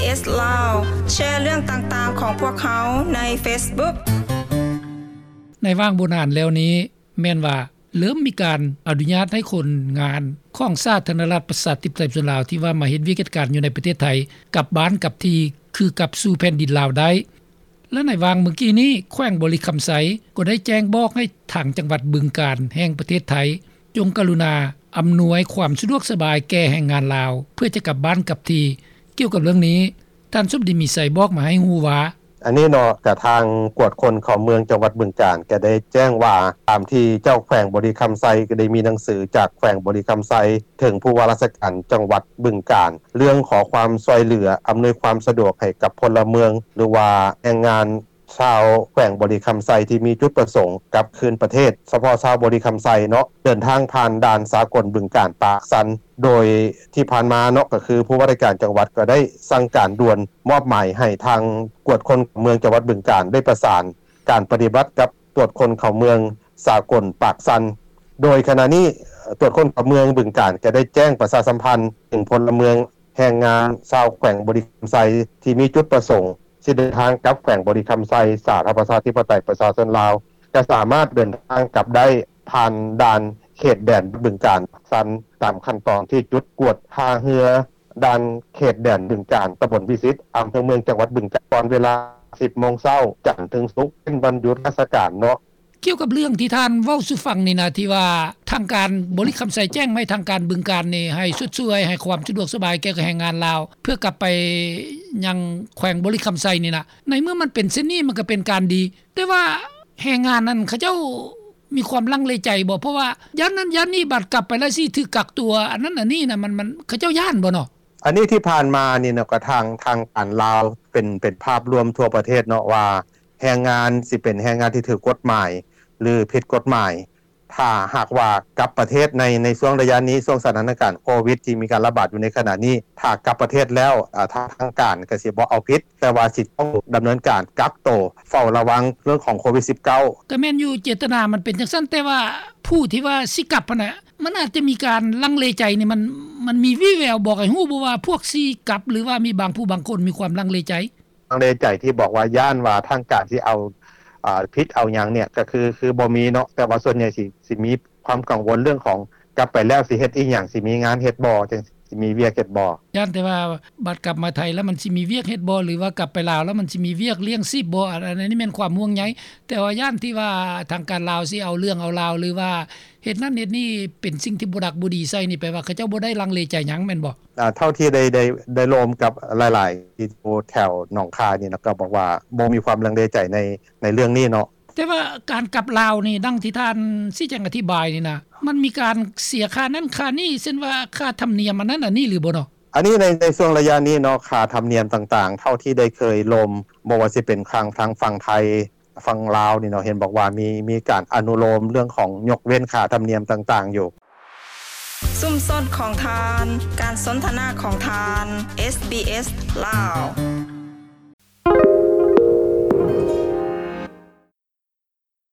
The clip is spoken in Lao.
SBS Lao ແຊເລື່ອງຕ່າງໆຂອງພວກເຮົາໃນ Facebook. ໃນຫວ່າງບໍ່ນານແລ້ວນີ້ ແມ່ນວ່າເລີ່ມມີການອະນຸຍາດໃຫ້ຄົນງານຂອງສາທາລະນະລັດ ປະຊາທິປະໄຕ ປະຊາຊົນລາວ ທີ່ວ່າມາເຮັດວຽກເຮັດການຢູ່ໃນປະເທດໄທ ກັບບ້ານກັບທີ່ ຄືກັບສູ່ແຜ່ນດິນລາວໄດ້. ແລະ ໃນຫວ່າງມື້ກີ້ນີ້ ແຂວງບໍລິຄຳໄຊ ກໍໄດ້ແຈ້ງບອກໃຫ້ທາງຈັງຫວັດບຶງການ ແຫ່ງປະເທດໄທ ຈົ່ງກະລຸນາອຳນວຍຄວາມສະດວກສະບາຍແກ່ແຮງງານລາວ ເພື່ອຈະກັບບ້ານກັບທີ່. ກ່ຽວກັບເລື່ອງນີ້ ທ່ານສົມດີ ມີໄຊ ບອກມາໃຫ້ຮູ້ວ່າ: ອັນນີ້ເນາະ ກະທາງກວດຄົນເຂົ້າເມືອງຈັງຫວັດບຶງການ ກະໄດ້ແຈ້ງວ່າ ຕາມທີ່ເຈົ້າແຂວງບໍລິຄຳໄຊ ກະໄດ້ມີໜັງສືຈາກແຂວງບໍລິຄຳໄຊ ເຖິງຜູ້ວ່າລາຊະການຈັງຫວັດບຶງການ ເລື່ອງຂໍຄວາມຊ່ວຍເຫຼືອ ອຳນວຍຄວາມສະດວກໃຫ້ກັບພົນລະເມືອງ ຫຼືວ່າແຮງງານຊາວແຂວງບໍລິຄຳໄຊ ທີ່ມີຈຸດປະສົງກັບຄືນປະເທດ ສະເພາະຊາວບໍລິຄຳໄຊເນາະ ເດີນທາງຜ່ານດ່ານສາກົນບຶງການປາກຊັນ. ໂດຍທີ່ຜ່ານມາເນາະ ກະຄືຜູ້ວ່າລາຊະການຈັງຫວັດ ກະໄດ້ສັ່ງການດ່ວນ ມອບໝາຍໃຫ້ທາງກວດຄົນເມືອງຈັງຫວັດບຶງການ ໄດ້ປະສານການປະຕິບັດກັບ ຕວດຄົນເຂົ້າເມືອງສາກົນປາກຊັນ. ໂດຍຂະນະນີ້ ຕວດຄົນເຂົ້າເມືອງບຶງການ ກະໄດ້ແຈ້ງປະຊາສຳພັນເຖິງພົນລະເມືອງ ແຮງງານຊາວແຂວງບໍລິຄຳໄຊ ທີ່ມີຈຸດປະສົງຊິເດີນທາງກັບແຂວງບໍລິຄຳໄຊ ສາທາລະນະລັດ ປະຊາທິປະໄຕ ປະຊາຊົນລາວ ກະສາມາດເດີນທາງກັບໄດ້ ຜ່ານດ່ານເຂດແດນບຶງການປາກຊັນ ຕາມຂັ້ນຕອນທີ່ຈຸດກວດທ່າເຮືອ ດ່ານເຂດແດນບຶງການ ຕຳບົນວິສິດ ອຳເພີເມືອງ ຈັງຫວັດບຶງການ ກ່ອນເວລາສິບໂມງເຊົ້າ ຈັນເຖິງສຸກ ເປັນວັນຢຸດລາຊະການເນາະ. ກ່ຽວກັບເລື່ອງທີ່ທ່ານເວົ້າສູ່ຟັງນີ້ນະ ທີ່ວ່າທາງການບໍລິຄຳໄຊແຈ້ງມາໃຫ້ທາງການບຶງການນີ້ ໃຫ້ຊົດຊ່ວຍ ໃຫ້ຄວາມສະດວກສະບາຍແກ່ແຮງງານລາວ ເພື່ອກັບໄປຍັງແຂວງບໍລິຄຳໄຊນີ້ນະ ໃນເມື່ອມັນເປັນເຊັ່ນນີ້ ມັນກະເປັນການດີ ແຕ່ວ່າແຮງງານນັ້ນ ເຂົາເຈົ້າມີຄວາມລັງເລໃຈບໍ່? ເພາະວ່າຢ້ານນັ້ນຢ້ານນີ້ ບາດກັບໄປແລ້ວຊິຖືກກັກຕົວ ອັນນັ້ນອັນນີ້ນະ ມັນ ມັນ ເຂົາເຈົ້າຢ້ານບໍ່ເນາະ? ອັນນີ້ທີ່ຜ່ານມານີ້ນະ ກະທາງ ທາງການລາວ ເປັນ ເປັນພາບລວມທົ່ວປະເທດເນາະ ວ່າແຮງງານຊິເປັນແຮງງານທີ່ຖືກກົດໝາຍ ຫຼື ຜິດກົດໝາຍ ຖ້າຫາກວ່າກັບປະເທດໃນ ໃນຊ່ວງໄລຍະນີ້ ຊ່ວງສະຖານະການໂຄວິດ ທີ່ມີການລະບາດຢູ່ໃນຂະນະນີ້ ຖ້າກັບປະເທດແລ້ວ ອາ ທາງ ທາງການກະຊິບໍ່ເອົາຜິດ ແຕ່ວ່າຊິຕ້ອງດຳເນີນການກັກໂຕ ເຝົ້າລະວັງເລື່ອງຂອງໂຄວິດສິບເກົ້າ. ກະແມ່ນຢູ່ ເຈດຕະນາມັນເປັນຈັ່ງຊັ້ນ ແຕ່ວ່າຜູ້ທີ່ວ່າຊິກັບຫັ້ນນະ ມັນອາດຈະມີການລັງເລໃຈນີ້ ມັນ ມັນມີວີ່ແວວບອກໃຫ້ຮູ້ບໍ່ວ່າ ພວກຊິກັບ ຫຼືວ່າມີບາງຜູ້ບາງຄົນມີຄວາມລັງເລໃຈ? ລັງເລໃຈທີ່ບອກວ່າຢ້ານວ່າທາງການຊິເອົາ ອາ ຜິດເອົາຫຍັງນີ້ ກະຄື ຄືບໍ່ມີເນາະ ແຕ່ວ່າສ່ວນໃຫຍ່ຊິ ຊິມີຄວາມກັງວົນເລື່ອງຂອງ ກັບໄປແລ້ວຊິເຮັດອີ່ຫຍັງ ຊິມີງານເຮັດບໍ່ ຈັ່ງຊິມີວຽກເຮັດບໍ່. ຢ້ານແຕ່ວ່າບາດກັບມາໄທແລ້ວ ມັນຊິມີວຽກເຮັດບໍ່ ຫຼືວ່າກັບໄປລາວແລ້ວ ມັນຊິມີວຽກລ້ຽງຊີບບໍ່ ອັນ ອັນນີ້ແມ່ນຄວາມຫ່ວງໃຍ ແຕ່ວ່າຢ້ານທີ່ວ່າທາງການລາວຊິເອົາເລື່ອງເອົາລາວ ຫຼືວ່າເຮັດນັ້ນເຮັດນີ້ ເປັນສິ່ງທີ່ບໍ່ດັກບໍ່ດີໃສ່ນີ້ ແປວ່າເຂົາເຈົ້າບໍ່ໄດ້ລັງເລໃຈຫຍັງແມ່ນບໍ່? ອາ ເທົ່າທີ່ໄດ້ ໄດ້ ໄດ້ລົມກັບຫຼາຍໆ ທີ່ຢູ່ແຖວໜອງຄາຍນີ້ນະ ກະບອກວ່າບໍ່ມີຄວາມລັງເລໃຈໃນ ໃນເລື່ອງນີ້ເນາະ. ແຕ່ວ່າການກັບລາວນີ້ ດັ່ງທີ່ທ່ານຊີ້ແຈງອະທິບາຍນີ້ນະ ມັນມີການເສຍຄ່ານັ້ນຄ່ານີ້ ເຊັ່ນວ່າຄ່າທຳນຽມອັນນັ້ນອັນນີ້ຫຼືບໍ່ເນາະ? ອັນນີ້ໃນ ໃນຊ່ວງໄລຍະນີ້ເນາະ ຄ່າທຳນຽມຕ່າງໆ ເທົ່າທີ່ໄດ້ເຄີຍລົມ ບໍ່ວ່າຊິເປັນທາງ ທາງຝັ່ງໄທ ຝັ່ງລາວນີ້ເນາະ ເຫັນບອກວ່າມີ ມີການອະນຸໂລມເລື່ອງຂອງຍົກເວັ້ນຄ່າທຳນຽມຕ່າງໆຢູ່. ຊຸມຊົນຂອງທ່ານ ການສົນທະນາຂອງທ່ານ SBS ລາວ.